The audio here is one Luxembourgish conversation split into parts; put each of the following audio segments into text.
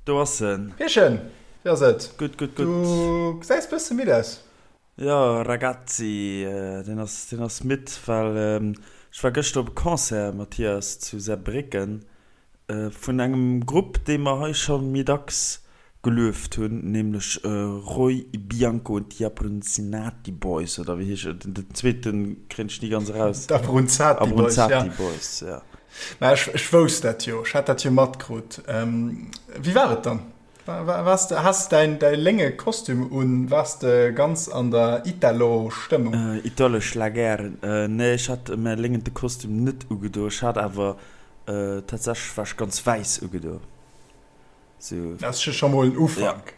Do ass en. Pierchen, wéi ass et? Gutt, gutt, gutt. Du gesäis bësse midd aus. Jo, Ragazzi, deen ass, deen ass midd, well ech war gëschter op e Concert, Mathias, zu Saarbrécken, vun engem Grupp, dee mer hei scho méi dacks gelueft hunn, nämlech Roy Bianco und die Abruzzati Boys, oder wéi heescht et? Den zweete kréien ech ni ganz eraus. D'Abruzzati Boys, ja. Abruzzati Boys, ja. Mä ech, ech wousst dat jo, ech hat dat jo matkrut. Wéi war et dann? Waars de, has däin, däi lénge Kostüm un? Waars de ganz an der Italo-Stëmmung? Italo-Schlager? Nee, ech hat mäi léngente Kostüm net ugedo. Ech hat awer tatsächlech, war ech ganz wäiss ugedo. Sou. Dat ass jo scho mol en Ufank.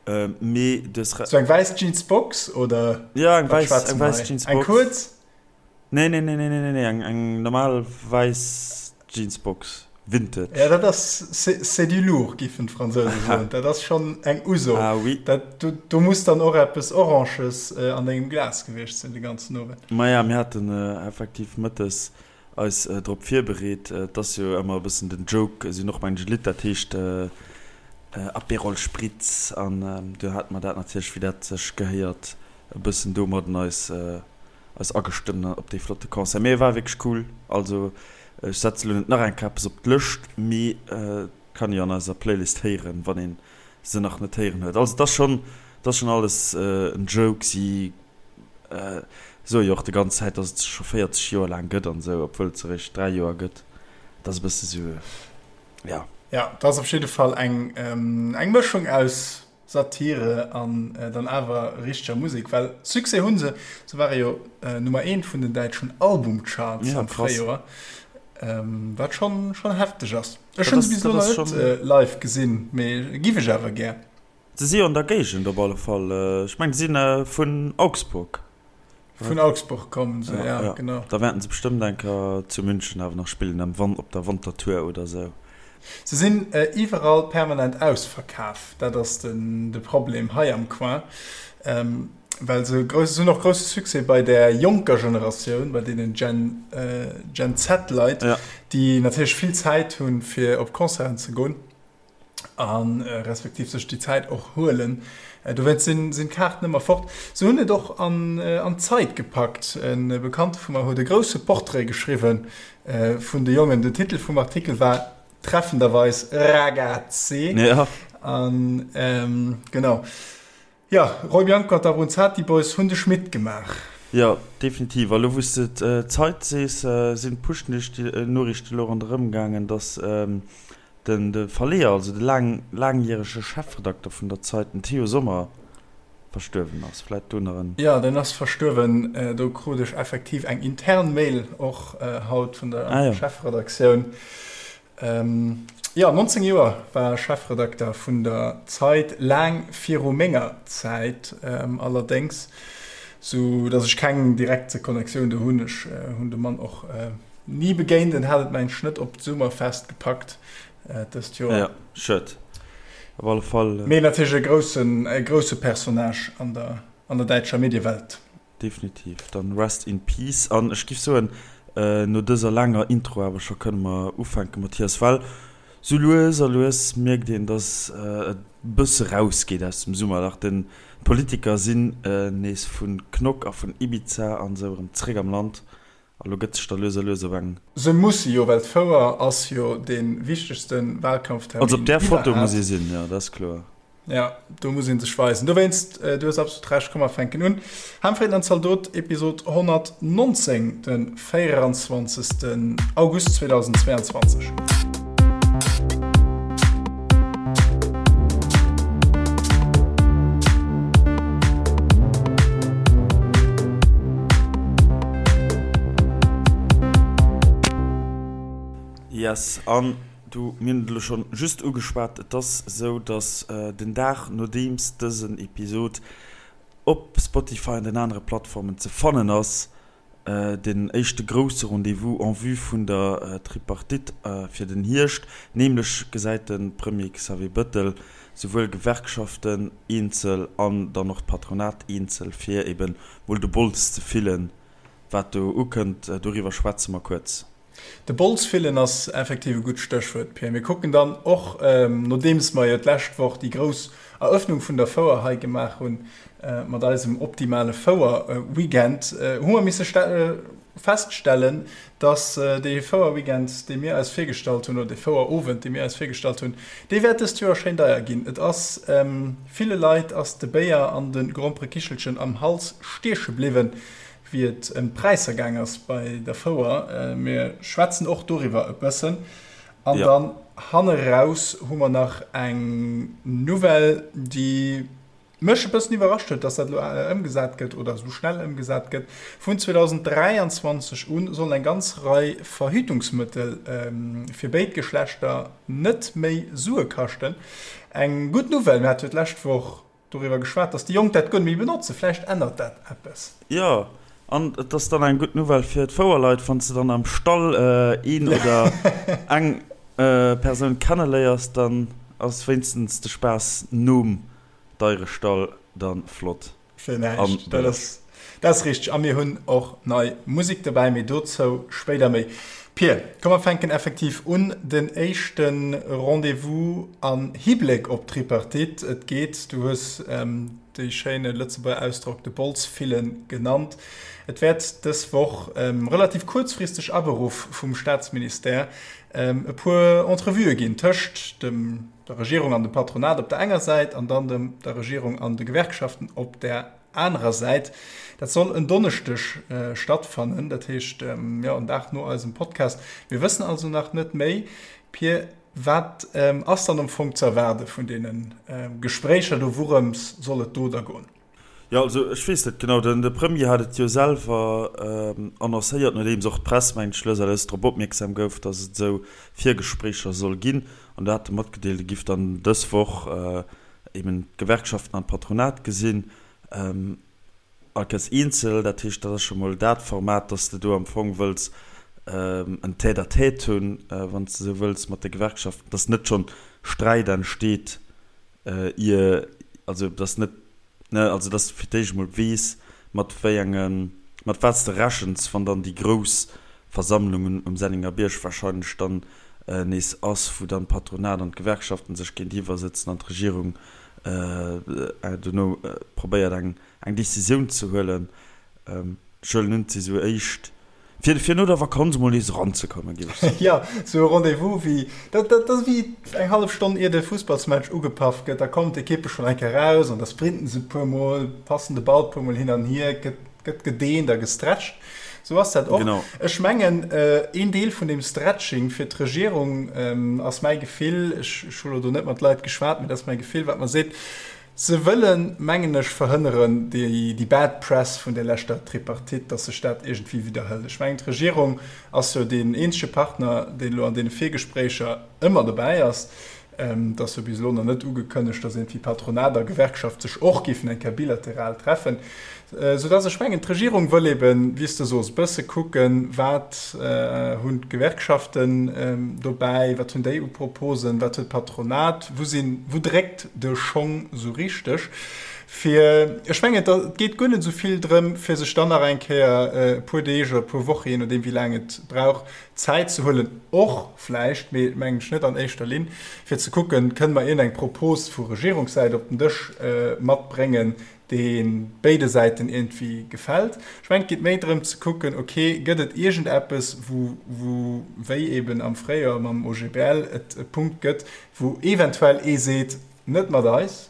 Ja. Mee du hues. Sou eng wäiss Jeansbox oder? Ja, eng wäiss, eng wäiss Jeansbox. Eng kuerz? Nee, nee, nee, nee, nee, nee, eng, eng normal wäiss Jeansbox. Vintage. Ja, dat ass, c'est du lourd, giffen d'Fransouse soen. Dat ass schonn eng Uso. Ah oui. Dat, do, do muss dann och eppes Oranges an dengem Glas gewiescht sinn de ganzen Owend. Maja, mir haten effektiv mëttes eis drop virbereet. Et ass jo ëmmer e bëssen den Joke, si hunn och mengen e Lidd, dat heescht Aperol Spritz an do hate mer dat natierlech, wéi dat sech gehéiert, e bëssen domadden eis eis agestëmmt op dee flotte Concert. Mee e war wierklech cool. Also ech setze lo net nach eng Kéier eppes op d'Lëscht, mee et kann ee jo an eiser Playlist héieren, wann ee se nach net héieren huet. Also et ass schonn, et ass schonn alles en Joke. Si soe jo och de ganz Zäit, dass et se scho 40 Joer laang gëtt an esou, obwuel et se eréischt 3 Joer gëtt. Et ass e bësse sou, ja. Ja, et ass op jidde Fall eng eng Mëschung aus Satire an dann awer richteger Musek, well Succès hu se. Se ware jo Nummer eent vun den däitschen Albumcharts am Fréijoer, wat schonn schonn hefteg ass. Ech hunn se bis elo nach net live gesinn, mee giff ech awer gär. Se si jo an der Géigend op alle Fall. Ech mengen, se si vun Augsburg. Vun Augsburg kommen se, ja, genau. Da wäerten se bestëmmt eng Kéier zu München awer nach spillen, am Wan-, op der Wantertour oder sou. Se sinn iwwerall permanent ausverkaf, dat ass de Problem hei am Coin. Well se grouss, se hunn och grousse Succès bei där jonker Generatioun, bei deenen Gen, Gen Z-Leit, déi natierlech vill Zäit hunn, fir op Concerten ze goen a respektiv sech déi Zäit och huelen. Dowéinst sinn, sinn d'Kaarten ëmmer fort. Se hunn et och an, an d'Zeit gepackt. E Bekannte vu mer huet e grousse Portrait geschriwwe vun de Jongen. Den Titel vum Artikel war treffenderweis Ragazzi. An genau. Jo, Roy Bianco an d'Abruzzati Boys hunn de Schmitt gemaach. Jo, definitiv. A lo wou s de d'Zeit sees, sinn d'Push-Noriichten elo ronderëm gaangen, datt den de Verleeër, also de laang laangjärege Chefredakter vun der Zeit, den Theo Sommer, verstuerwen ass. Vläit do nach en. Jo, deen ass verstuerwen. Do krut ech effektiv eng intern Mail och haut vun der Chefredaktioun. Jo, 19 Joer war Chefredakter vun der Zeit, laang viru menger Zäit allerdéngs, sou datt ech keng direkt Connectioun do hunn. Ech hunn de Mann och ni begéint, en hat et mengen ech net op d'Summerfest gepackt dëst Joer. Jo, schued op alle Fall. Mee natierlech e groussen, e grousse Personnage an der, an der däitscher Mediewelt. Definitiv, dann rest in peace an ech giff soen no dëser laanger Intro awer scho kënne mer ufänken Mathias, well sou lues a lues mierkt een dass et bësse raus geet aus dem Summerlach, den d'Politiker sinn nees vun Knock a vun Ibiza an sou erëm zréck am Land a lo gëtt sech da lues a lues op eng. Se musse jo, well d'Fouer ass jo dee wichtegste Wahlkampftermin Also op där Foto muss ee sinn, jo dat ass kloer. Ja, do muss een sech weisen. Dowéinst, du hues absolut Recht, komm mer fänken un. Hamfreden an Zaldot, Episod 119, de 24. August 2022. Yes, an Du, mir hunn et elo schonn just ugeschwat, et ass esou, dass den Dag nodeems dësen Episod op Spotify an den anere Plattformen ze fannen ass, den éischte grousse Rendez-vous en vue vun der Tripartite fir den Hierscht, nämlech gesäit de Premier Xavier Bëttel souwuel Gewerkschaften eenzel an dann och d'Patronat eenzel, fir eben mol de Bols ze fillen, wat do ukënnt. Doriwwer schwätze mer kuerz. De Bols fillen ass effektiv e gutt Stéchwuert, Pir. Mir kucken dann och, nodeems mer jo d'lescht Woch déi grouss Erëffnung vun der Fouer hei gemaach hunn, mat eisem optimale Fouer-Weekend, hu mer misse feststellen, dass dee Fouer-Weekend, dee mir eis virgestallt hunn, oder dee Fouer-Owend, dee mir eis virgestallt hunn, dee wäert dëst Joer schéin deier ginn. Et ass ville Leit ass de Béier an de Gromperekichelchen am Hals stieche bliwwen, wéi et ëm d'Präisser gaang ass bei der Fouer. Mir schwätzen och doriwwer e bëssen. An dann hanne raus hu mer nach eng Nouvelle, déi mech e bëssen iwwerrascht huet, dass dat elo ëmgesat gëtt oder esou schnell ëmgesat gëtt. Vun 2023 u sollen eng ganz Rei Verhütungsmëttel fir béid Geschlechter net méi Sue kaschten. Eng gutt Nouvelle. Mir hate jo d'lescht Woch doriwwer geschwat, dass déi Jonk dat guer net méi benotzen. Vläicht ännert dat eppes. Jo, an et ass dann eng gutt Nouvelle fir d'Fouerleit, wann s de dann am Stall een oder eng Persoun kenneléiers, dann ass wéinstens de Spaass nom Deierestall dann flott. Fir näischt. Dat ass, dat ass richteg. A mir hunn och nei Musek dobäi, mee dozou spéider méi. Pir, komm mer fänken effektiv un. Den éischte Rendez-vous am Hibléck op d'Tripartite. Et geet, du hues dee schéine Lëtzebuerger Ausdrock de Bols fillen genannt. Et wäert dës Woch, relativ kuerzfristeg aberuff vum Staatsministère, e puer Entrevuë ginn tëscht dem, der Regierung an dem Patronat op der enger Säit an dann dem, der Regierung an de Gewerkschaften op där anerer Säit. Dat soll en Donneschdeg stattfannen, dat heescht, jo, en Dag no eisem Podcast. Mir wëssen also nach net méi. Pir, wat ass dann am Fong ze erwaarde vun deene Gespréicher do? Wourëms soll et do da goen? Jo, also ech weess net genau. Den de Premier hat et jo selwer annoncéiert, nodeems och d'Press, mengen ech, lues a lues drop opmierksam gouf, datt et esou Virgespréicher soll ginn. An do hat e matgedeelt, e giff dann dës Woch eben d'Gewerkschaften an d'Patronat gesinn, all Kéiers eenzel. Dat heescht, dat ass scho mol dat Format, datt s de do am Fong wëlls en Tête-à-tête hunn, wann s de esou wëlls, mat de Gewerkschaften, datt net schonn Sträit entsteet, ier, also datt net, ne, also datt s de fir d'éischt emol weess, mat wéi engen, mat wat s de rechens, wann dann déi grouss Versammlung um Sennengerbierg wahrscheinlech dann nees ass, wou dann d'Patronat an d'Gewerkschaften sech géintiwwer sëtzen an d'Regierung dono probéiert eng Decisioun ze huelen. Ech huelen un, et si sou éischt Fir, fir no der Vakanz emol nees eranzekommen, géif ech soen. Jo, sou e Rendez-vous wéi, dat, dat ass wéi eng hallef Stonn ier de Fussballsmatch ugepaff gëtt, da kommen d'Ekippe schonn eng Kéier raus an da sprinten se e puer Mol, passen de Ball e puer Mol hin an hier, gëtt, gëtt gedeent a gestretcht. Sou ass dat och. Genau. Ech mengen, een Deel vun deem Stretching fir d'Regierung ass mäi Gefill, ech, ech hu lo do net mat Leit geschwat, mee dat ass mäi Gefill, wat mer seet, Se wëllen, mengen ech, verhënneren, déi bad press vun der leschter Tripartite, dass sech dat iergendwéi widderhëlt. Ech mengen, d'Regierung ass jo deen eenzege Partner, deen elo an deene Virgespréicher ëmmer dobäi ass. Et ass jo bis elo nach net ugekënnegt, dass iergendwéi Patronat a Gewerkschaft sech och géifen eng Kéier bilateral treffen. Soudass ech mengen, d'Regierung wëll eben, wéi s de sos, e bësse kucken, wat hunn d'Gewerkschaften dobäi, wat hunn déi u Proposen, wat huet d'Patronat, wou sinn, wou dréckt de Schong esou richteg. Fir, ech mengen, et geet guer net esou vill drëm, fir sech dann nach eng Kéier e puer Deeg oder e puer Woche, jee nodeem wéi laang et brauch, Zäit ze huelen, och vläicht, mee mengen ech net an éischter Linn, fir ze kucken, kënne mer iergendeng Propos vu Regierungssäit op den Dësch matbréngen, dee béide Säiten iergendwéi gefält. Ech mengen, et geet méi drëm ze kucken, ok, gëtt et iergendeppes, wou, wou, wéi eben am Fréijoer mam OGBL, et e Punkt gëtt, wou eventuell ee seet, net mat eis,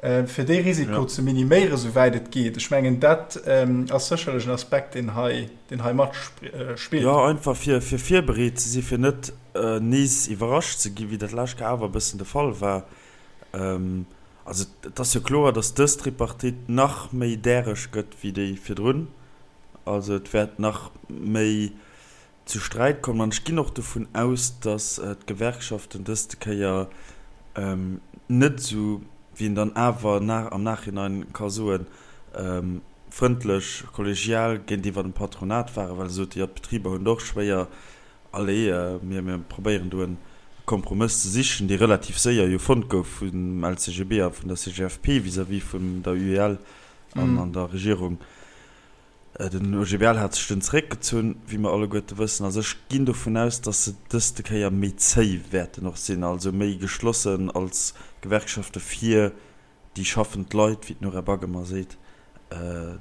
fir dee Risiko ze miniméieren, souwäit et geet. Ech mengen, dat ass sécherlech en Aspekt, deen hei, deen hei matspillt. Jo, einfach fir, fir virbereet ze sinn, fir net nees iwwerrascht ze ginn, wéi dat lescht Kéier awer e bëssen de Fall war. Also et ass jo kloer, datt dës Tripartite nach méi däreg gëtt wéi déi virdrun. Also et wäert nach méi zu Sträit kommen. An ech ginn och dovun aus, datt d'Gewerkschaften dëste Kéier net esou, wéi een dann awer am Nachhinein ka soen, frëndlech, kollegial géintiwwer dem Patronat waren, well se sote jo, d'Betriber hunn et och schwéier. Allez, mir mir probéieren do e Kompromëss ze sichen, dee relativ séier jo fonnt gouf vum LCGB a vun der CGFP vis-à-vis vun der UEL an an der Regierung. Den OGBL hat sech dunn zeréckgezunn, wéi mer alleguerte wëssen. Also ech ginn dovun aus, datt se dëste Kéier méi zéi wäerten och sinn, also méi geschlossen als Gewerkschafte fir déi schaffend Leit, wéi d'Nora Back ëmmer seet,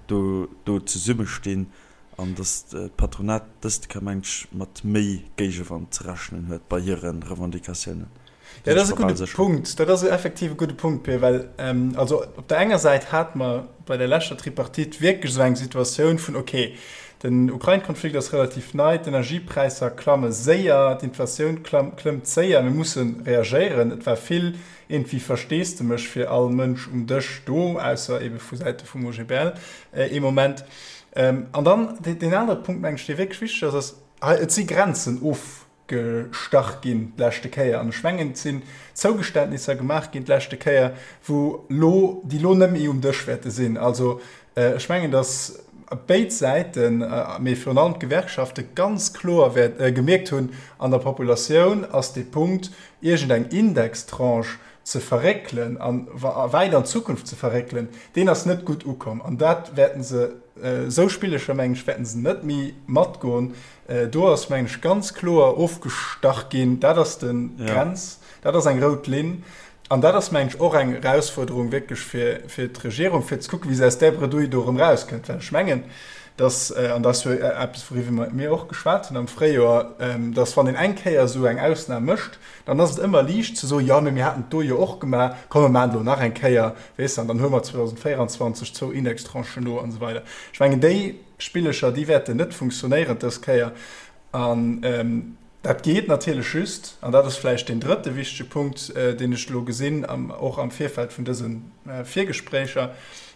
do do zesummestinn an datt d'Patronat dëste Kéier, mengen ech, mat méi Géigewand ze rechnen huet bei hire Revendicatiounen. Ja, dat ass e gudde Punkt. Dat ass effektiv e gudde Punkt, Pir, well also op der enger Säit hate mer bei der leschter Tripartite wierklech esou eng Situatioun vun, okay, den Ukrain-Konflikt ass relativ nei, d'Energiepräisser klamme séier, d'Inflatioun klëmmt séier, mir musse reagéieren. Et war vill iergendwéi Versteesdemech fir all Mënsch um Dësch do, ausser eebe vu Säite vum OGBL ee Moment. An dann deen anere Punkt, mengen ech, dee wierklech wichteg ass, ass, hei, et si Grenzen of. Gestach ginn d'leschte Kéier an ech mengen et sinn Zougeständnisser gemaach ginn d'leschte Kéier, wou lo, déi lo net méi um Dësch wäerte sinn. Also ech mengen, datt béid Säiten, mee virun allem d'Gewerkschafte ganz kloer wäert gemierkt hunn, an der Populatioun ass dee Punkt, iergendeng Indextranche ze verréckelen a wäit an d'Zukunft ze verréckelen, deen ass net gutt ukomm an dat wäerten se, esou Spillecher mengen ech, wäerten se net méi matgoen. Do ass, mengen ech, ganz kloer ofgestach ginn, dat ass de Grenz, dat ass eng rout Linn. An dat ass, mengen ech, och eng Erausfuerderung wierklech fir d'Regierung, fir ze kucken, wéi se aus där Bredouille do erëm erauskënnt. Well ech mengen, dass, an dat ass jo eppes, wouriwwer mir och geschwat hunn am Fréijoer, dass, wann een eng Kéier esou eng Ausnam mécht, dann ass et ëmmer liicht ze soen, jo, mee mir haten et do jo och gemaach, komm, mir maachen et elo nach eng Kéier, weess de, an dann huele mer 2024 zwou Indextranchen no an esou weider. Ech mengen, déi Spillecher, déi wäerten net funktionéieren dës Kéier. An dat geet natierlech just, an dat ass vläicht deen drëtte wichtege Punkt, deen ech elo gesinn, och am Virfeld vun dëse Virgespréicher,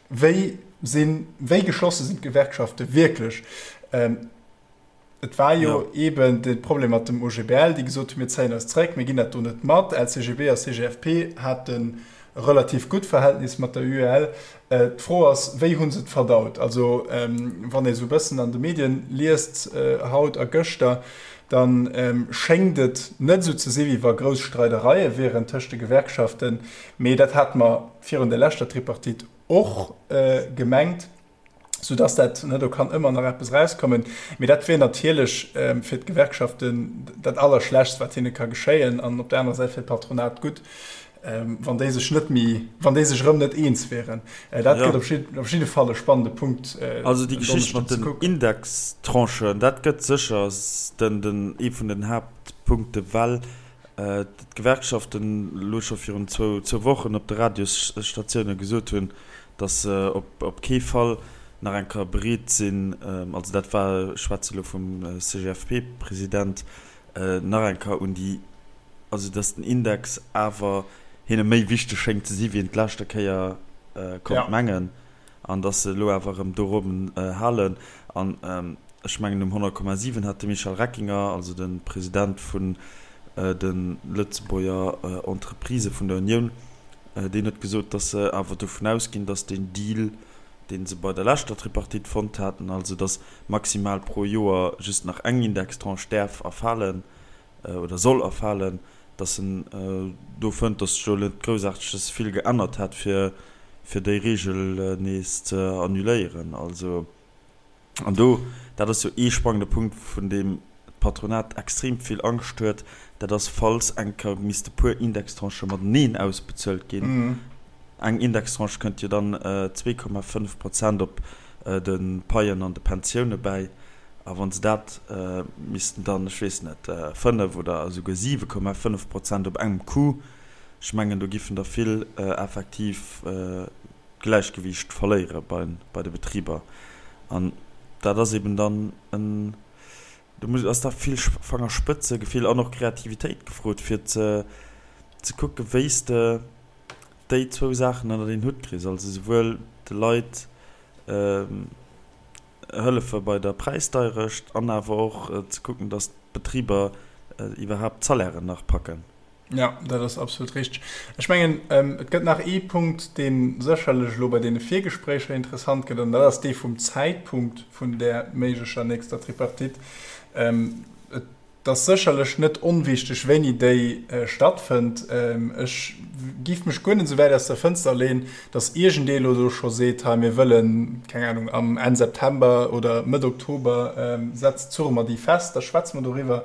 Wéi sinn, wéi geschlosse sinn d'Gewerkschafte wierklech? Et war jo eeben de Problem mat dem OGBL, déi gesot hunn, mir zéien eis zréck, mir ginn dat do net mat. LCGB a CGFP haten e relativ gutt Verhältnis mat der UEL. D'Fro ass, wéi hu se et verdaut? Also wann ee sou e bëssen an de Medien liest haut a gëschter, da schéngt et net esou ze si wéi wa grouss Streidereie wieren tëscht de Gewerkschaften. Mee dat hate mer virun der leschter Tripartite och gemengt. Soudass dat, ne, do kann ëmmer nach eppes erauskommen, mee dat wier natierlech fir d'Gewerkschaften dat Allerschlechtst, wat hinne ka geschéien, an op der anerer Säit fir d'Patronat gutt, wann déi sech net méi, wann déi sech erëm net eens wieren. Dat gëtt op jidde Fall e spannende Punkt. Also déi Geschicht mat den Indextranchen, dat gëtt sécher den, den, ee vun den Haaptpunkte, well d'Gewerkschaften elo scho virun zwou Wochen op de Radiosstatioune gesot hunn, datt se op kee Fall nach eng Kéier bereet sinn, also dat war, ech schwätze elo vum CGFP-President, nach eng Kéier un déi, also datt den Index awer hinne méi wichteg schéngt ze si wéi en d'leschte Kéier konnt mengen an datt se elo awer erëm dorobben halen. An ech mengen um 100,7 hat de Michel Reckinger, also de President vun de Lëtzebuerger Entreprisë vun der Unioun, Deen huet gesot, datt se awer dovun ausginn, datt deen Deal, dee se bei der leschter Tripartite fonnt haten, also datt maximal pro Joer just nach eng Indextranche däerf erfalen oder soll erfalen, datt en do fënnt, datt sech do net groussaarteges vill geännert hätt, fir déi Reegel nees ze annuléieren. Also. An do, dat ass jo ee sprangende Punkt, vun deem d'Patronat extrem vill Angscht huet, dat ass, falls eng Kéier misste puer Indextranchë mateneen ausbezuelt ginn. Eng Indextranche kënnt jo dann 2,5 Prozent op de Paien an de Pensioune bäi. A wa se dat missten dann, ech weess net, 5 oder esouguer 7,5 Prozent op engem Coup, ech mengen, do giffen der vill effektiv d'Gläichgewiicht verléiere bei de Betriber. An dat ass eben dann en, do muss, ass da vill Fangerspëtzegefill an och Kreativitéit gefrot, fir ze ze kucke wéi s de déi zwou Saachen ënnert een Hutt kriss, also souwuel de Leit hëllefe bei der Präisdeierecht an awer och ze kucken, datt d'Betriber iwwerhaapt d'Salairen nach packen. Ja, dat ass absolut richteg. Ech mengen, et gëtt nach ee Punkt, dee sécherlech elo bei deene Virgespréicher interessant gëtt, an dat ass dee vum Zäitpunkt vun där méiglecher nächster Tripartite. Et. Et ass sécherlech net onwichteg, wéini déi stattfënnt. Ech giff mech guer net esou wäit aus der Fënster leen, datt iergendee elo do scho seet, hei mir wëllen, keng Ahnung, am Enn September oder Mëtt Oktober setzt, zurre mer déi fest, da schwätze mer doriwwer,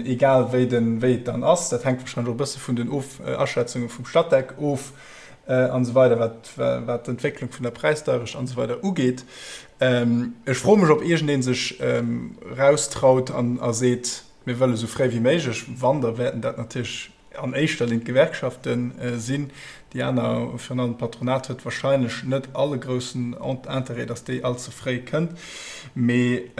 egal wéi den, wéi et dann ass. Dat hänkt wahrscheinlech och e bësse vun den Of Aschätzunge vum Statec of an esou weider, wat, wat d'Entwécklung vun der Präisdeierecht an esou weider ugeet. Ech froe mech, ob iergendee sech eraustraut an a seet, mir wëlle sou fréi wéi méiglech. Wann, da wäerten dat natierlech an éischter Linn d'Gewerkschafte sinn. Déi aner, virun allem d'Patronat, huet wahrscheinlech net all e groussen Interêt, datt déi all ze fréi kënnt. Mee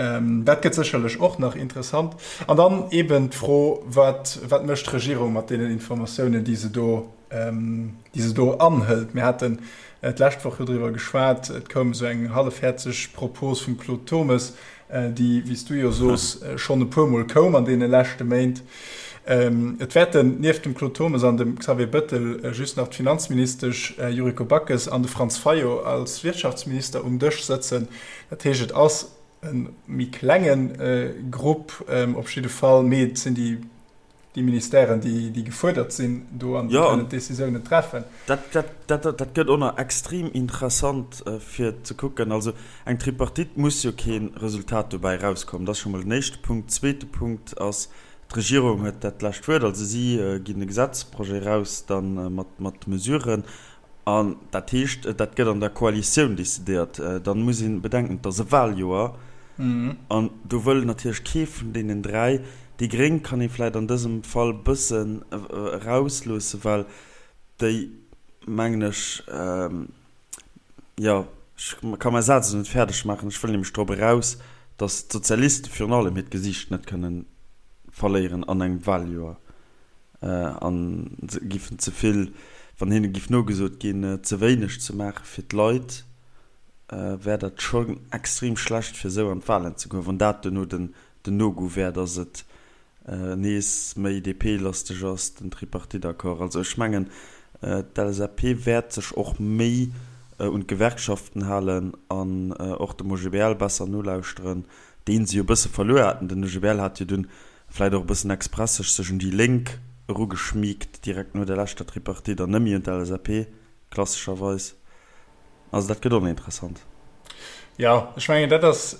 dat gëtt sécherlech och nach interessant. An dann eeben d'Fro, Wat, wat mécht d'Regierung mat deenen Informatiounen, déi se do déi se do anhëlt. Mir haten d'lescht Woch jo driwwer geschwat, et koum esou eng hallefhäerzeg Propos vum Claude Turmes, déi, wéi s du jo sos, schonn e puermol koum an deene leschte Méint. Et wäerten nieft dem Claude Turmes an dem Xavier Bettel just nach d'Finanzministesch Yuriko Backes an de Franz Fayot als Wirtschaftsminister um Dësch sëtzen. Dat heescht, et ass e méi klenge Grupp op jidde Fall, mee et sinn déi déi Ministèren, déi, déi gefuerdert sinn do an déi kënnen d'Décisiounen treffen. Dat, dat, dat, dat gëtt och nach extrem interessant fir ze kucken. Also eng Tripartite muss jo kee Resultat dobäi erauskommen. Dat ass scho mol den éischte Punkt. Zweete Punkt ass, d'Regierung huet dat lescht Wuert. Also si ginn e Gesetzprojet eraus da mat, mat Mesuren. An dat heescht, dat gëtt an der Koalitioun decidéiert. Dann muss ee bedenken, et ass e Wahljoer an do wëll natierlech kee vun deenen 3, déi Gréng kann ee vläicht an dësem Fall e bëssen erausloossen, well déi, mengen ech, jo, ech ka mäi Saz elo net fäerdeg maachen, ech wëll nämlech drop eraus, datt d'Sozialiste virun allem hiert Gesiicht net kënnen verléieren an engem Wahljoer. An se giffen ze vill, wann hinne giff nogesot ginn, ze wéineg ze maache fir d'Leit, wär dat schonn extrem schlecht fir esou an d'Wahlen ze goen, wann dat duerno den No-Go wär, datt et nees méi DP-lasteg ass, den Tripartite-Accord. Also ech mengen, d'LSAP wäert sech och méi un d'Gewerkschaften halen an och dem OGBL besser nolauschteren, dee se jo e bësse verluer haten. Den OGBL hat jo dunn Vläit och e bëssen express sech sech un déi Lénk erugeschmiegt, direkt no der leschter Tripartite, an net méi un d'LSAP, klassescherweis. Also dat gëtt och nach interessant. Jo, ech mengen, dat ass,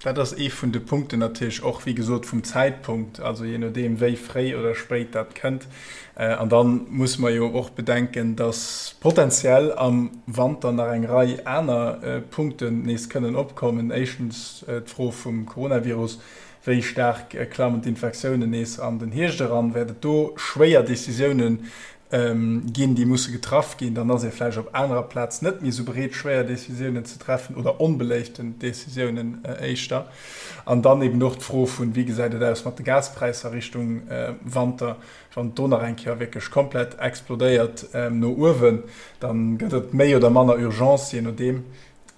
dat ass ee vun de Punkten natierlech och, wéi gesot, vum Zäitpunkt, also jee nodeem wéi fréi oder spéit dat kënnt. An da musse mer jo och bedenken, datt potenziell am Wanter nach eng Rei aner Punkten nees kënnen opkommen. Éischtens d'Fro vum Coronavirus, Wéi staark klammen d'Infektiounen nees an den Hierscht eran? Wäert et do schwéier Decisioune ginn, déi musse getraff ginn? Dann ass ee vläicht op anerer Plaz net méi esou bereet, schwéier Decisiounen ze treffen oder onbeléiften Decisiounen éischter. An dann eben och d'Fro vun, wéi gesäit et aus mat de Gaspräisser Richtung Wanter? Wann et do nach eng Kéier wierklech komplett explodéiert no uewen, da gëtt et méi oder manner Urgence, jee nodeem.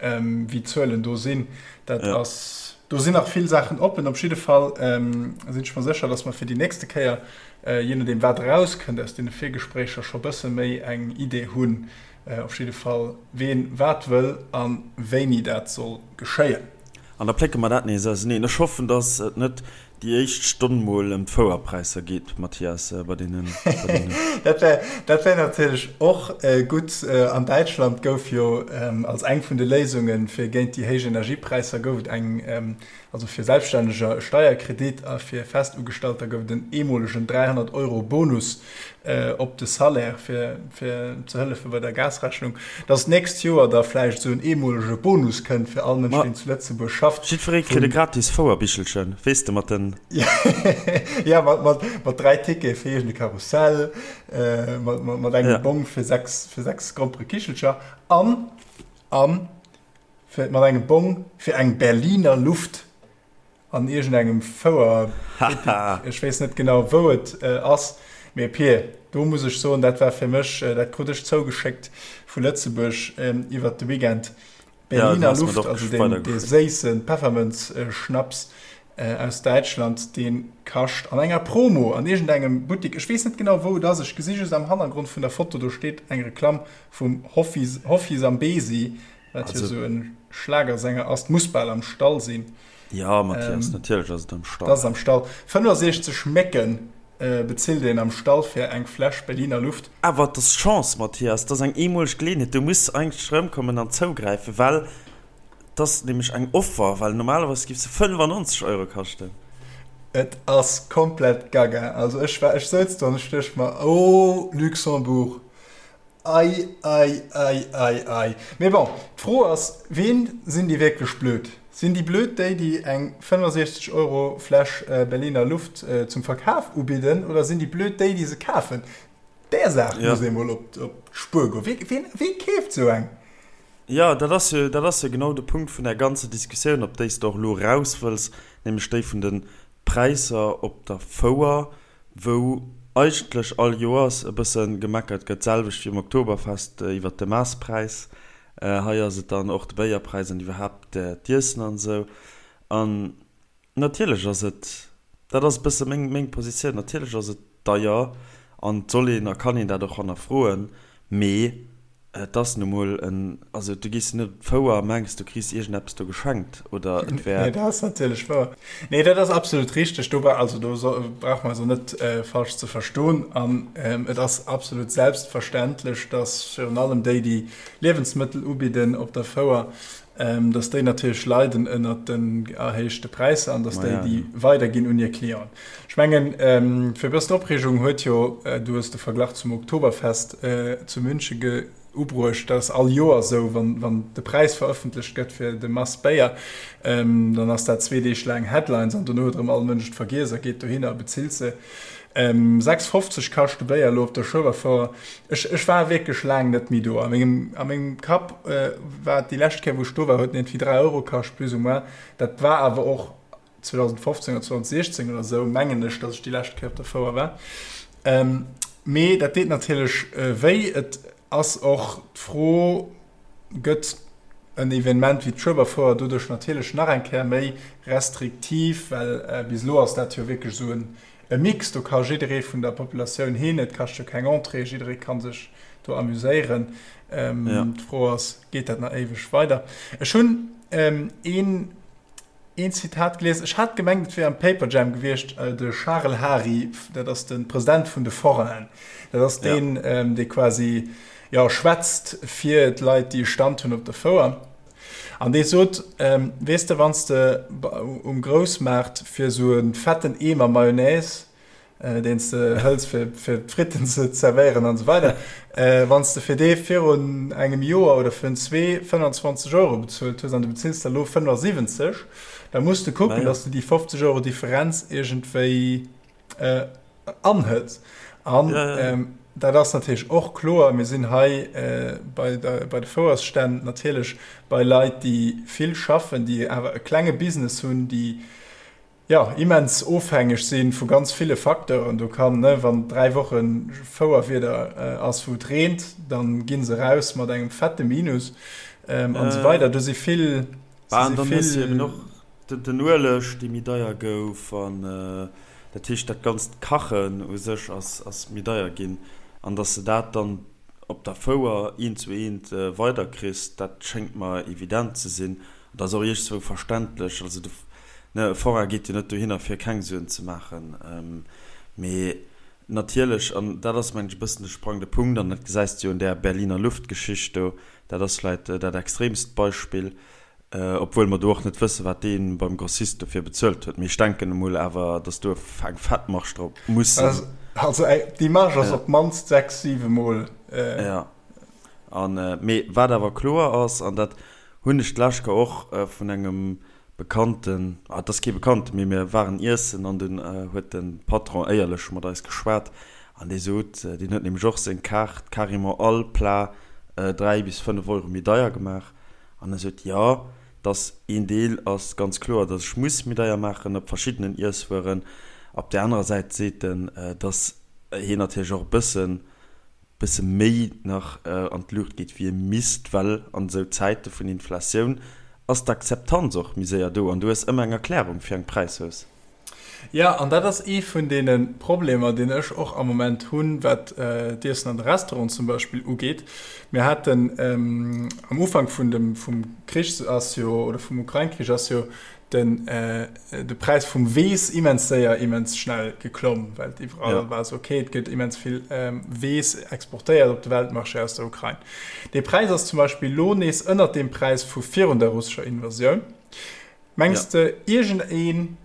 wéi d'Zuelen do sinn. Dat ja. ass, do sinn nach vill Saachen oppen. Op jidde Fall ähm, sinn ech mer sécher, dass mer fir déi nächste Kéier, äh, je nodeem wat erauskënnt aus deene Virgespréicher, scho bësse méi eng Idee hunn, äh, op jidde Fall ween wat wëll a wéini dat soll geschéien. An da plécke mer dat nees auseneen. Ech hoffen, dass et net Déi éischt Stonn mol ëm d'Fouerpräisser geet, Mathias, bei deenen, bei deenen. Dat wär, dat wär natierlech och gutt. An Däitschland gouf jo als eng vun de Léisunge fir géint déi héich Energiepräisser gouf et eng, also fir Selbststänneger e Steierkredit a fir Festugestalter gouf et en eemolegen 300 Euro Bonus op de Salaire fir, fir ze hëllefe bei der Gasrechnung. Dass d'nächst Joer da vläicht esou en eemolege Bonus kënnt fir all Mënsch, deen zu Lëtzebuerg schafft. Jiddweree kritt e gratis Fouerbichelchen, weess de, mat den. Ja, mat, mat, mat 3 Tickete fir iergend e Karussell, mat, mat, mat engem Bong fir 6, fir 6 Gromperekichelcher an, an fir, mat engem Bong fir eng Berliner Luft. An iergendengem Fouerbuttik, ech weess net genau wou et ass, mee Pir, do muss ech soen, dat war fir mech, dat krut ech zougeschéckt vu Lëtzebuerg iwwert de Weekend, Berliner Luft, also deen dee séisse Peffermënz-Schnaps aus Däitschland, dee kascht an enger Promo an iergendengem Buttik, ech weess net genau wou et ass, ech gesi just am Hannergrond vun der Foto, do steet eng Reklamm vum Hoffi Hoffi Zambezi. Wat jo esou e Schlagersänger ass. Muss bal am Stall sinn. Jo, Mathias, natierlech ass et am Stall. Et ass am Stall. 65 Mécken bezilt een am Stall fir eng Fläsch Berliner Luft. Awer et ass Chance, Mathias, et ass eng eemoleg Geleeënheet. Du muss eigentlech erëmkommen an zougräifen, well et ass nämlech eng Offer, well normalerweis géif se 95 Euro kaschten. Et ass komplett gaga. Also ech war, ech souz do an ech duecht mer, oh Luxembourg, Ei, ei, ei, ei, ei. Mee bon, d'Fro ass, Ween sinn déi wierklech blöd? Sinn déi blöd déi, déi eng 65 Euro Fläsch Berliner Luft zum Verkaf ubidden, oder sinn déi blöd déi, déi se kafen? Där Saach muss ee mol op d'Spuer goen. Wee, wee keeft esou eng? Jo, dat ass jo, dat ass jo genau de Punkt vun där ganzer Diskussioun, op déi s de och elo eraus wëlls, nämlech déi vun de Präisser op der Fouer. wou eigentlech all Joers e bësse gemeckert gëtt, d'selwecht wéi um Oktoberfest iwwert de Maasspräis. Hei ass et dann och de Béierpräis an iwwerhaapt d'Iessen an esou. An natierlech ass et, dat ass e bësse meng, meng Positioun, natierlech ass et deier an et soll een a kann een dat och hannerfroen, mee Et ass nu mol en, also du gees jo net op d'Fouer a mengs du kriss iergendeppes do geschenkt oder et wär. Nee, dat ass natierlech wouer. Nee, dat ass absolut richteg. Do bra, also do so, brauche mer eis och net falsch ze verstoen. An et ass absolut selbstverständlech, datt virun allem déi, déi Liewensmëttel ubidden op der Fouer, datt déi natierlech leiden ënnert den erhéichte Präisser an datt déi déi weiderginn un hir Clienten. Ech mengen, fir e bëssen Opreegung huet jo, du hues de Verglach zum Oktoberfest zu München ubruecht, dat ass all Joer esou, wann de Präis verëffentlecht gëtt fir de Mass Béier, dann ass dat zwee Deeg laang Headlines an dono huet erëm all Mënsch et vergiess a geet dohinner a bezilt se. 6,50 kascht de Béier elo op der Schueberfouer. Ech, ech war wierklech laang net méi do. A mengem, a mengem Kapp war et déi lescht Kéier, wou ech do war, huet en iergendwéi 3 Euro kascht, plus ou moins. Dat war awer och 2015 oder 2016 oder esou, mengen ech, datt ech déi lescht Kéier op der Fouer war. Mee dat deet natierlech wéi. Et ass och d'Fro, Gëtt en Evenement wéi d'Schueberfouer doduerch natierlech nach eng Kéier méi restriktiv, well bis elo ass dat jo wierklech esou en e Mix, do ka jidderee vun der Populatioun hin, et kascht jo keng Entrée, jidderee ka sech do amuséieren. D'Fro ass, geet dat nach éiweg weider? Ech hunn een een Zitat gelies, ech hat gemengt, et wier am Paperjam gewiescht, de Charel Hary, dat ass de President vun de Forainen, dat ass deen, dee quasi, jo, schwätzt fir d'Leit, déi e Stand hunn op der Fouer. An dee sot, Weess de, wann s de um Groussmaart fir esou e fetten Eemer Mayonnaise, deen s de hëls fir d'Fritten ze zerwéieren an esou weider, wann s de fir dee virun engem Joer oder virun zwee 25 Euro bezuelt hues an du bezills der elo 75, da muss de kucken, datt s de déi 50 Euro Differenz iergendwéi anhëls. An dat ass natierlech och kloer, mir sinn hei bei de Fouersstänn natierlech bei Leit, déi vill schaffen, déi awer e klenge Business hunn, déi, jo, immens ofhängeg si vu ganz ville Facteuren. Do kann, ne, wann 3 Woche Fouerwieder ass, wou et reent, da gi se eraus mat engem fette Minus an esou weider. Do si vill, si si vill. Den Ueleg, dee méi deier gouf, an dat heescht, dat ganzt Kachen u sech ass méi deier ginn. An datt s de dat dann op der Fouer eent zu eent weiderkriss, dat schéngt mer evident ze sinn. An dat ass och iergendzwou verständlech. Also de, ne, e Forain geet jo net dohinner, fir keng Suen ze maachen. Mee natierlech, an dat ass, mengen ech, e bëssen de sprangende Punkt, an dat gesäis de jo un där Berliner Luft-Geschicht do, dat ass vläicht dat extremst Beispill, Obwuel mer do och net wëssen, wat dee beim Grossist dofir bezuelt huet. Mee ech denken emol awer, datt do eng fett Marge drop muss sinn. Also déi Marge ass op d'mannst 6, 7 Mol. Jo. An, mee wat awer kloer ass, an dat hunn ech d'lescht Kéier och vun engem Bekannten, ah, et ass kee Bekannten, mee mir waren iessen an dunn huet de Patron éierlech mat eis geschwat an dee sot, deen huet nämlech och seng Kaart carrément all Plat 3 bis 5 Euro méi deier gemaach. An e sot, Jo, dass een Deel ass ganz kloer, dass ech muss méi deier maachen op verschiddenen Iesswueren. Op där anerer Säit seet en, dass hien natierlech och e bëssen, bësse méi nach an d'Luucht geet, wéi e misst, well an esou Zäite vun Inflatioun ass d'Akzeptanz och méi séier do an du hues ëmmer eng Erklärung fir eng Präishausse. Jo, an dat ass ee vun deene Problemer, deen ech och am Moment hunn, wat d'Iessen an de Restauranten zum Beispill ugeet. Mir haten am Ufank vun dem, vum Krich ass jo, oder vum Ukrain-Krich ass jo den, de Präis vum Weess immens séier, immens schnell geklomm, well et iwwerall war esou, okay, et gëtt immens vill Weess exportéiert op de Weltmarché aus der Ukrain. Dee Präis ass zum Beispill elo nees ënnert deem Präis vu virun der russescher Invasioun. Mengs de iergend een,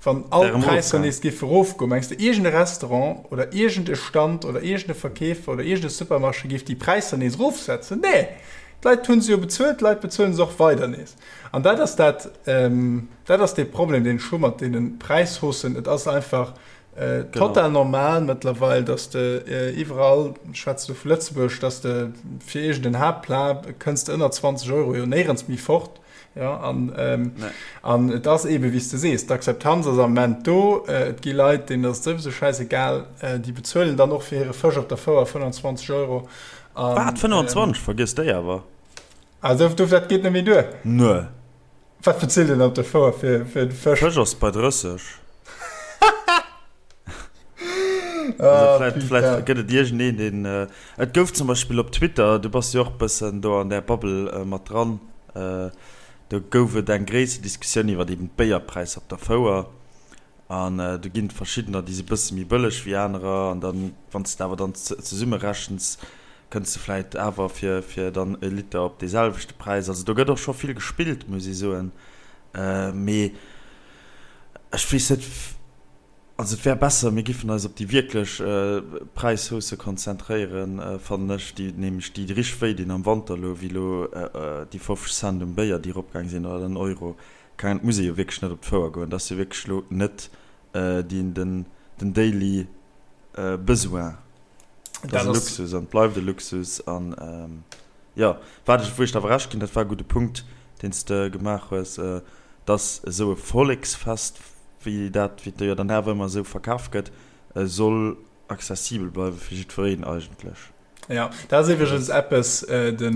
wann all d'Präisser nees géife rofgoen, mengs de iergend e Restaurant oder iergend e Stand oder iergend e Verkeefer oder iergend e Supermarché géif déi Präisser nees erofsetzen? Nee! D'Leit hu se jo bezuelt, d'Leit bezuelen se och weider nees. An dat ass dat, dat ass dee Problem, deen ech hu mat deene Präishaussen. Et ass einfach total normal mëttlerweil, dass de iwwerall, ech schwätze lo vu Lëtzebuerg, dass de fir iergend en Haaptplat kënns de ënner 20 Euro jo néierens méi fort. Ja, an, ähm, nee. an et ass eben, wéi s de sees, d'Akzeptanz ass am Moment do. Äh, et gi Leit, deenen ass et souwisou schäisegal, äh, déi bezuelen dann och fir hire Fësch op der Fouer 25 Euro. An, Wat, 25? Ähm, Vergiss déi awer. Also, du, dat geet net méi duer. Nee. Wat bezilt een op der Fouer fir, fir de Fësch? Fësch ass bei 30. Also vläit, vläit gëtt et iergendeen, deen. Et gouf zum Beispill op Twitter, du bass jo och bëssen do an där Bubble mat dran, do gouf et eng gréisser Diskussioun iwwer eben d'Béierpräisser op der Fouer. An do ginn et verschiddener, déi si bësse méi bëlleg wéi anerer. An dann, wann s de awer dann zesummerechens, kënns de vläit awer fir, fir dann e Liter op dee selwechte Präis. Also do gëtt och scho vill gespillt, muss ee soen. Mee ech weess net. Also et wär besser, mir giffen eis op déi wierklech Präishausse konzentréieren, fannen ech, déi nämlech déi richteg wéi dinn am Wanter elo, wéi elo déi 50 Cent um Béier, déi eropgaang sinn, oder den Euro. Keng Ahnung, et muss ee jo wierklech net op d'Fouer goen, dat ass jo wierklech elo net den daily Besoin. Dat ass e Luxus an et bleift e Luxus. An jo, wat ech, wou ech der awer Recht ginn, dat war e gudde Punkt, deen s de gemaach hues, dass esou e Volleksfest, wéi dat, wéi et jo dann awer ëmmer esou verkaf gëtt, soll accessibel bleiwe fir jiddwereen eigentlech. Jo, dat ass iwwregens eppes, de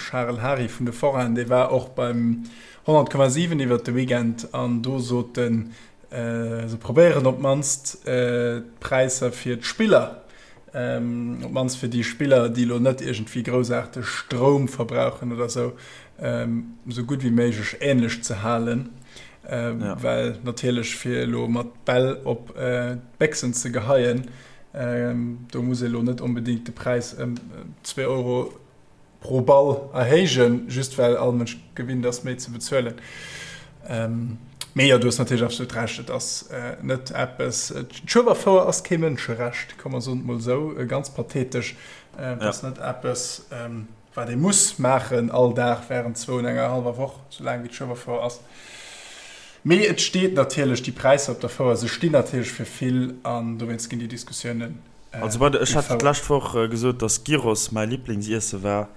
Charel Hary vun de Forainen, dee war och beim 100,7 iwwert de Weekend an do sot en, se probéieren op d'mannst d'Präisser fir d'Spiller Op d'mannst fir déi Spiller, déi elo net iergendwéi groussaarteg Stroum verbrauchen oder esou, esou gutt wéi méiglech änlech ze halen. Well natierlech fir elo mat Bäll op d'Béchsen ze geheien, do muss ee elo net onbedéngt de Präis ëm zwee Euro pro Ball erhéijen, just well all Mënsch gewinnt ass, méi ze bezuelen. Mee jo, du hues natierlech absolut Recht, et ass net eppes, d'Schueberfouer ass kee Mënscherecht, komm mer soen et mol esou, ganz pathetesch, et ass net eppes, wat ee muss maachen all Dag wärend zwou und enger hallwer Woch, sou laang wéi d'Schueberfouer ass. Mee et steet natierlech, déi Präisser op der Fouer, se stinn natierlech fir vill an dowéinst ginn déi Diskussiounen. Also bei der, ech hat d'lescht Woch gesot, dass Gyros mäi Liblingsiessen war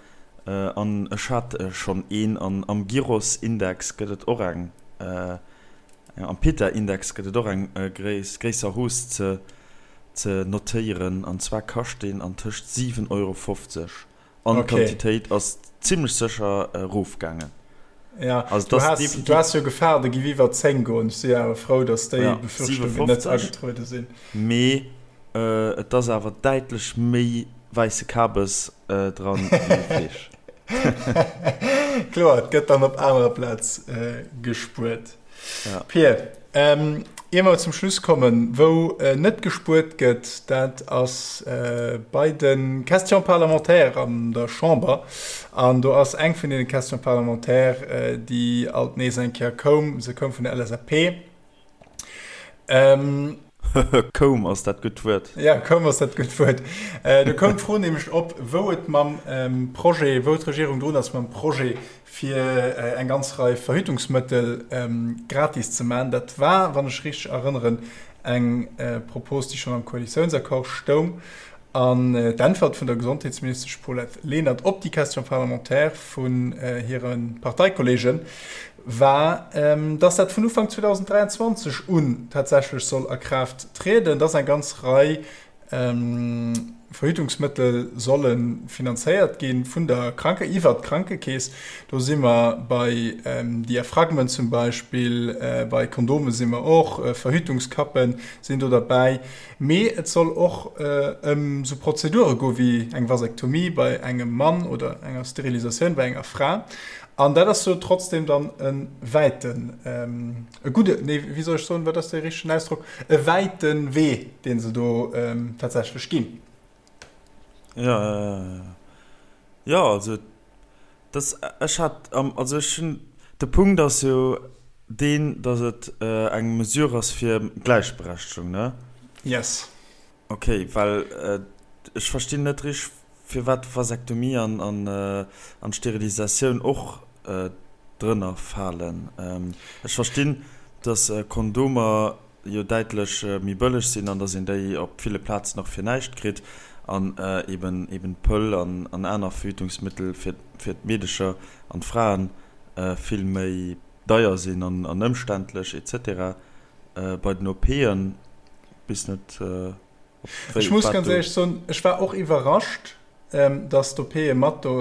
an ech hat schonn een an am Gyros-Index gëtt et och eng, am Pita-Index gëtt et och eng gréisser Hausse ze ze notéieren an zwar kascht deen an tëscht 7,50 Euro an d'Quantitéit ass zimmlech sécher erofgaangen. Ja, also du has, du has jo Gefahr, de giff iwwer 10 goen. Ech si awer frou, dass déi ja, Befürchtungen net agetruede sinn. Mee äh, et ass awer däitlech méi wäisse Kabes äh, dran wéi Fleesch. Kloer, et gëtt dann op anerer Plaz äh, gespuert. Ja. Pir, ähm, ier mer zum Schluss kommen, wou äh, net gespuert gëtt, dat ass äh, bei de Questions parlementaires an der Chamber. An do ass eng vun deene Questions parlementaires, äh, déi alt nees eng Kéier koum, se koum vun der LSAP. Ähm, Koum ass dat gutt Wuert. Ja, koum ass dat gutt Wuert. Äh, do koum d'Fro nämlech op, wou et mam ähm, Projet, wou d'Regierung drun ass mam Projet, fir eng ganz Rei Verhütungsmëttel gratis ze maachen. Dat war, wann ech richteg erënneren, eng Propos, déi schonn am Koalitiounsaccord stoung. An d'Äntwert vun der Gesondheetsministesch Paulette Lenert op déi Question parlementaire vun hire Parteikollege war, dass dat vun Ufank 2023 un tatsächlech soll a Kraaft trieden, dass eng ganz Rei. Verhütungsmëttel solle finanzéiert gi vun der Kranke iwwert d'Krankekeess. Do si mer bei Diaphragmen zum Beispill, bei Kondome si mer och, Verhütungskappe sinn do derbäi. Mee et soll och ëm esou Prozedure goe wéi eng Vasektomie bei engem Mann oder enger Sterilisatioun bei enger Fra. An dat ass jo trotzdem dann e wäiten, e gudde, nee, wéi soll ech soen, wat ass dee richtegen Ausdrock, e wäite Wee, dee se do tatsächlech ginn. Jo, jo, also dass, ech hat, also ech hunn, de Punkt ass jo deen, dass et eng Mesure ass fir Gläichberechtegung, ne? Yes. Ok, well ech verstinn net richteg firwat Vasektomie an an Sterilisatioun och drënner falen. Ech verstinn dass Kondomer jo däitlech méi bëlleg sinn an dass een déi op ville Plazen och fir näischt kritt an eben eben d'Pëll an an aner Verhütungsmittel fir fir d'Meedecher an d'Fraen vill méi deier sinn an an ëmständlech etc. Bei den OPen bis net op wéi Ech muss ganz éierlech soen, ech war och iwwerrascht, dass d'OPe mat do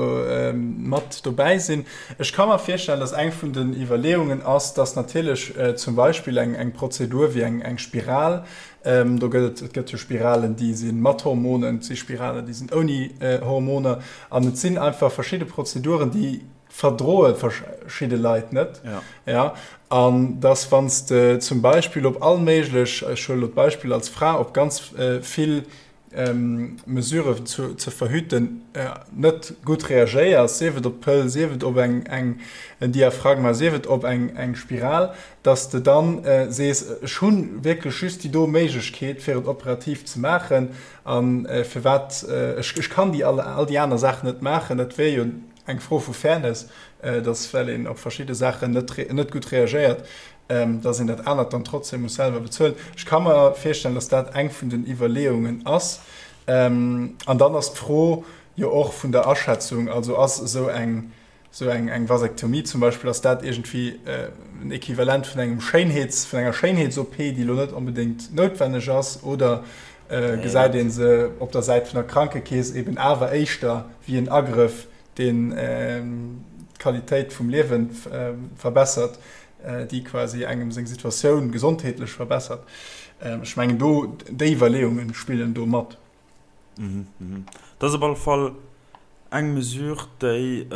mat dobäi sinn. Ech ka mer virstellen, dass eng vun den Iwwerleeungen ass, dass natierlech zum Beispill eng eng Prozedur wéi eng eng Spiral, do gëtt et et gëtt jo Spiralen, déi si mat Hormonen, et si Spiralen, déi sinn ouni Hormoner an et sinn einfach verschidde Prozeduren, déi verdroe verschidde Leit net. Ja. Ja, an dass wann s de zum Beispill op all méiglech, ech huele lo d'Beispill als Fra, op ganz vill Mesuren zu ze verhüten net gutt reagéiers, sief et op d'Pëll, sief et op eng eng en Diaphragma, sief et op eng eng Spiral, dass de dann sees, ech hu wierklech just déi do Méiglechkeet fir et operativ ze maachen a firwat ech ech kann déi all all déi aner Saachen net maachen. Dat wier jo eng Fro vu Fairness, dass well een op verschidde Saachen net net gutt reagéiert, dass een dat anert dann trotzdem muss selwer bezuelen. Ech ka mer virstellen, dass dat eng vun den Iwwerleeungen ass. An dann ass d'Fro jo och vun der Aschätzung, also ass esou eng esou eng eng Vasektomie zum Beispill, ass dat iergendwéi en Equivalent vun engem Schéinheets vun enger Schéinheets-OP, déi elo net onbedéngt noutwenneg ass, oder gesäit ee se op der Säit vun der Krankekeess eben awer éischter wéi en Agrëff, deen d'Qualitéit vum Liewe verbessert, déi quasi engem seng Situatioun gesondheetlech verbessert. Ech mengen do, déi Iwwerleeunge spillen do mat. Dat ass op alle Fall eng Mesure, déi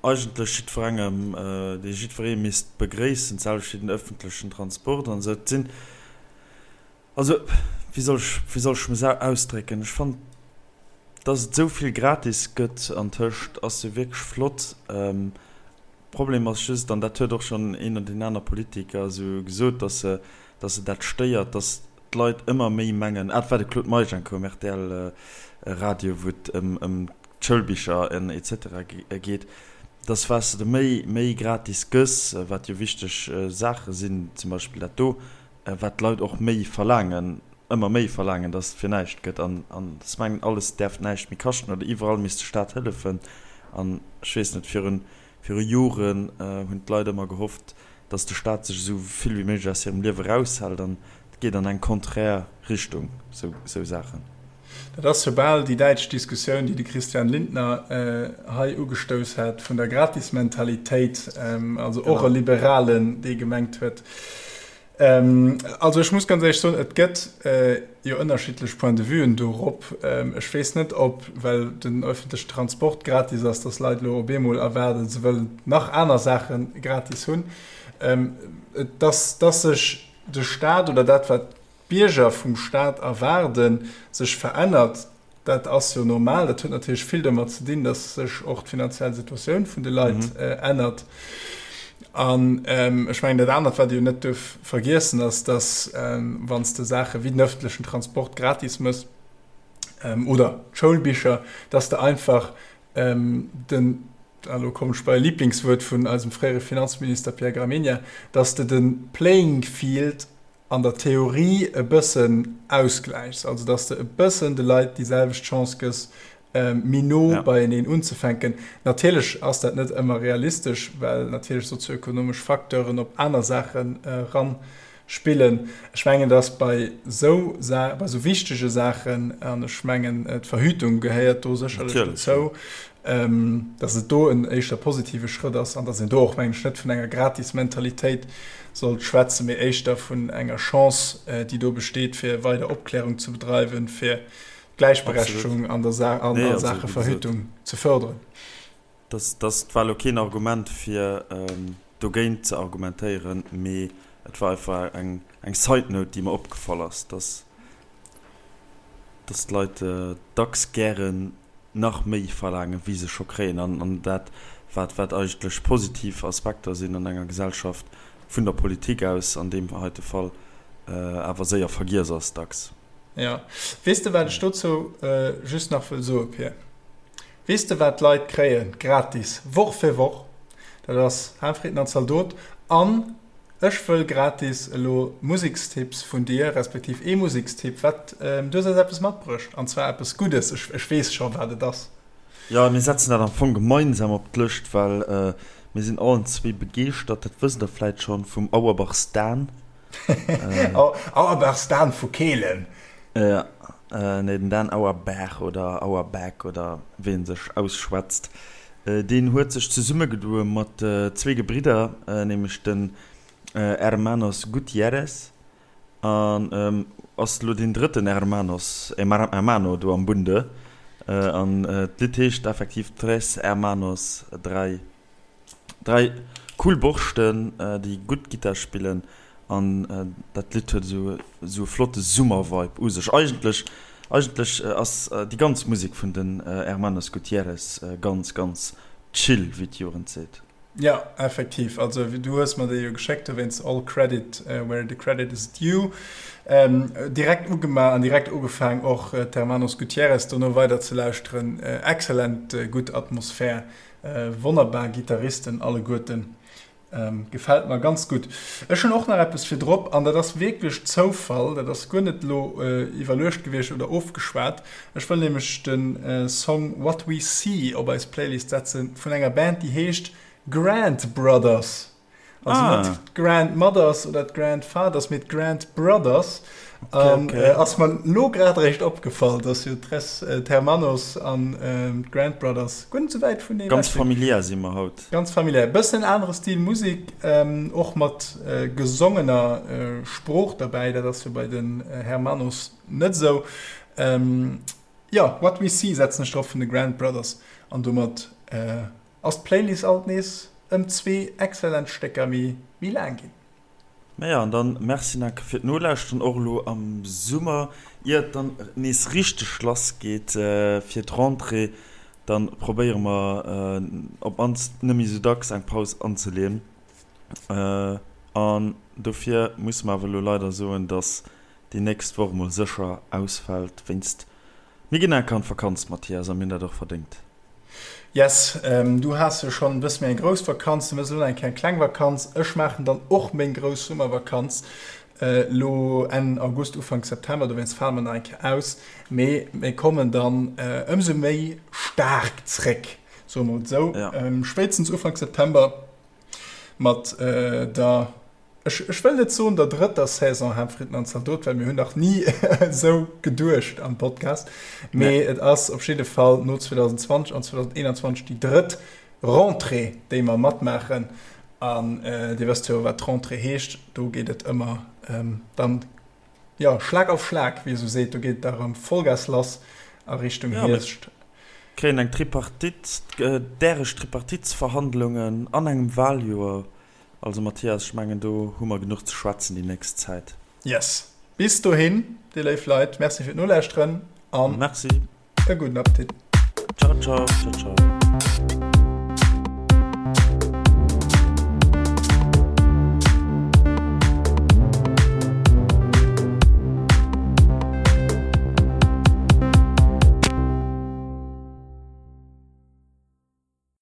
eigentlech jiddwerengem, déi jiddweree misst begréissen, d'selwecht wéi den öffentlechen Transport an esou. Et sinn, Also, wéi soll ech, wéi soll ech mech ausdrécken? Ech fannen, dass et esou vill gratis gëtt antëscht, ass jo wierklech flott. Problem ass just, an dat huet och schonn een oder deen aner Politiker esou gesot, dass se, dass se dat stéiert, dass d'Leit ëmmer méi mengen, ah, et war de Claude Meisch eng Kéier um RTL-Radio, wou et ëm, ëm d'Schoulbicher en et cetera geet, dass wat s de méi, méi gratis gëss, wat jo wichteg Saache sinn, zum Beispill dat do, wat d'Leit och méi verlaangen, ëmmer méi verlaangen, dass et fir näischt gëtt an an se mengen, alles däerf näischt méi kaschten oder iwwerall misst de Staat hëllefen. An ech weess net, virun viru Joren hunn d'Leit ëmmer gehofft, dass de Staat sech esou vill wéi méiglech aus hirem Liewe eraushält an et geet an eng konträr Richtung, esou esou Saachen. Dat ass jo bal déi däitsch Diskussioun, déi de Christian Lindner hei ugestouss hat, vun der Gratismentalitéit, also och e Liberalen, dee gemengt huet, also ech muss ganz éierlech soen, et gëtt jo ënnerschiddlech Point de vuen dorop. Ech weess net, ob, well den öffentlechen Transport gratis ass, dass Leit elo op eemol erwaarden, se wëllen nach aner Saache gratis hunn, dass sech de Staat oder dat, wat d'Bierger vum Staat erwaarden, sech verännert, dat ass jo normal. Dat huet natierlech vill domat ze dinn, datt sech och d'finanziell Situatioun vun de Leit ännert. An ech mengen, dat anert, wat ee jo net duerf vergiessen, ass, datt wann s de Saache wéi den ëffentlechen Transport gratis méchs oder d'Schoulbicher, datt s de einfach den, a lo kommen ech bei e Liblingswuert vun eisem fréiere Finanzminister Pierre Gramegna, datt s de de Playing Field an der Theorie e bëssen ausgläichs, also dass de e bëssen de Leit déi selwecht Chance gëss, méi no beieneen unzefänken. Natierlech ass dat net ëmmer realistesch, well natierlech sozioekonomesch Facteuren op aner Saachen eran. spillen. Ech mengen, dass bei esou Sa bei esou wichtege Saachen, an ech mengen, d'Verhütung gehéiert do sécherlech dozou, dass et do en éischter positive Schrëtt ass an dass een do och, mengen ech, net vun enger Gratis-Mentalitéit sollt schwätzen, mee éischter vun enger Chance, déi do besteet, fir weider Opklärung ze bedreiwen, fir d'Gläichberechtegung an der Sa an a Saache Verhütung ze förderen. Dat dat war elo keen Argument, fir dogéint ze argumentéieren, mee et war einfach eng eng Side-Note, déi mer opgefall ass, dass dass d'Leit dacks gären nach méi verlaangen, wéi se scho kréien, an an dat, wat wat eigentlech positiv Aspekter sinn an enger Gesellschaft, vun der Politik aus an deem heite Fall, awer séier vergiess ass dacks. Jo. Weess de, wat ech dozou just nach wëll soe, Pir? Weess de wat d'Leit kréien, gratis, Woch fir Woch? Dat ass Haarfritten an Zaldot. An ech wëll gratis elo Musekstipps vun dir, respektiv ee Musekstipp. Wat, du hues eis eppes matbruecht, an zwar eppes Guddes. Ech, ech weess scho wat et ass. Jo, mir setzen dat am Fong gemeinsam op d'Lëscht, well mir sinn allen zwee begeeschtert, dat wësst der vläit schonn, vum Auerbachs Dan. Auerbachs Dan vu Kehlen. Jo, nee, den Dan Auerbach oder Auerback oder wéi en sech ausschwätzt, deen huet sech zesummegedoe mat zwee Gebridder, nämlech den Hermanos Gutierrez an ass elo deen drëtten Hermanos, Hermano do am Bunde. An d'Lidd heescht effektiv Tres Hermanos, dräi. 3 cool Borschten déi gutt Gittar spillen an dat Lidd huet esou esou e flotte Summervibe u sech. Eigentlech eigentlech ass déi ganz Musek vun den Hermanos Gutierrez ganz ganz chill, wéi d'Jugend seet. Jo, effektiv. Also du hues mer déi jo geschéckt, dowéinst all credit where the credit is due. Direkt ugemaach an direkt ugefaang och d'Hermanos Gutierrez dono weider ze lauschteren. Excellent gutt Atmosphär. Wonnerbar Gitarristen alleguerten. Gefällt mer ganz gutt. Ech hunn och nach eppes fir drop an dat ass wierklech Zoufall, dat ass guer net elo iwwerluecht gewiescht oder ofgeschwat. Ech wëll nämlech de Song What We See op eis Playlist setzen vun enger Band déi heescht Grant Brothers. Also ah. net d'Grandmothers oder d'Grandfathers, mee d'Grandbrothers. Okay, um, okay. Äh, ass mer lo grad recht opgefall, dass jo Tres äh, Termanos an ähm, d'Grandbrothers guer net sou wäit vun Ganz familiär si mer haut. Ganz familiär. Bëssen anere Stil Musik, ähm, och mat äh, gesongener äh, Sprooch derbäi. Dat ass jo bei den äh, Hermanos net sou. Ähm, ja, What We See setzen ech drop vun de Grandbrothers an domat äh, Ass d'Playlist alt nees ëm zwee excellent Stécker méi méi laang ginn. Maja, an dann merci nach fir d'Nolauschteren, och elo am Summer, ier et dann nees richteg lass geet fir d'Rentrée, dann probéiere mer op mannst net méi sou dacks eng Paus anzeleeën. An dofir musse mer awer elo leider soen, dass déi nächst Woch mol sécher ausfält wéinst mir ginn enker an d'Vakanz, Mathias, a mir hunn dat och verdéngt. Yes, du has jo schonn e bësse méi eng grouss Vakanz, du méchs elo nach eng Kéier eng kleng Vakanz. Ech maachen dann och meng grouss Summervakanz elo Enn August, Ufank September, dowéinst fale mer nach eng Kéier aus. Mee mir kommen dann ëmsou méi staark zréck, soe mer et esou, spéitstens Ufank September mat der Ech, ech wëll net soen der drëtter Saison Haaptfritten an Zaldot, well mir hunn nach ni esou geduecht am Podcast. Mee et ass op jidde Fall no 2020 an 2021 déi drëtt Rentrée, déi mer matmaachen. An Dir wësst jo, wat d'Rentrée heescht. Do geet et ëmmer dann, jo, Schlag auf Schlag, wéi ee sou seet. Do geet et da erëm Vollgas lass a Richtung Hierscht. Kréien eng Tripartite, däreg Tripartitsverhandlungen an engem Wahljoer. Also Mathias, ech mengen do hu mer genuch ze schwätzen déi nächst Zäit. Yes. Bis dohin, dir léif Leit, Merci fir d'Nolauschteren an Merci. e gudden Appetit. Ciao, ciao, ciao, ciao.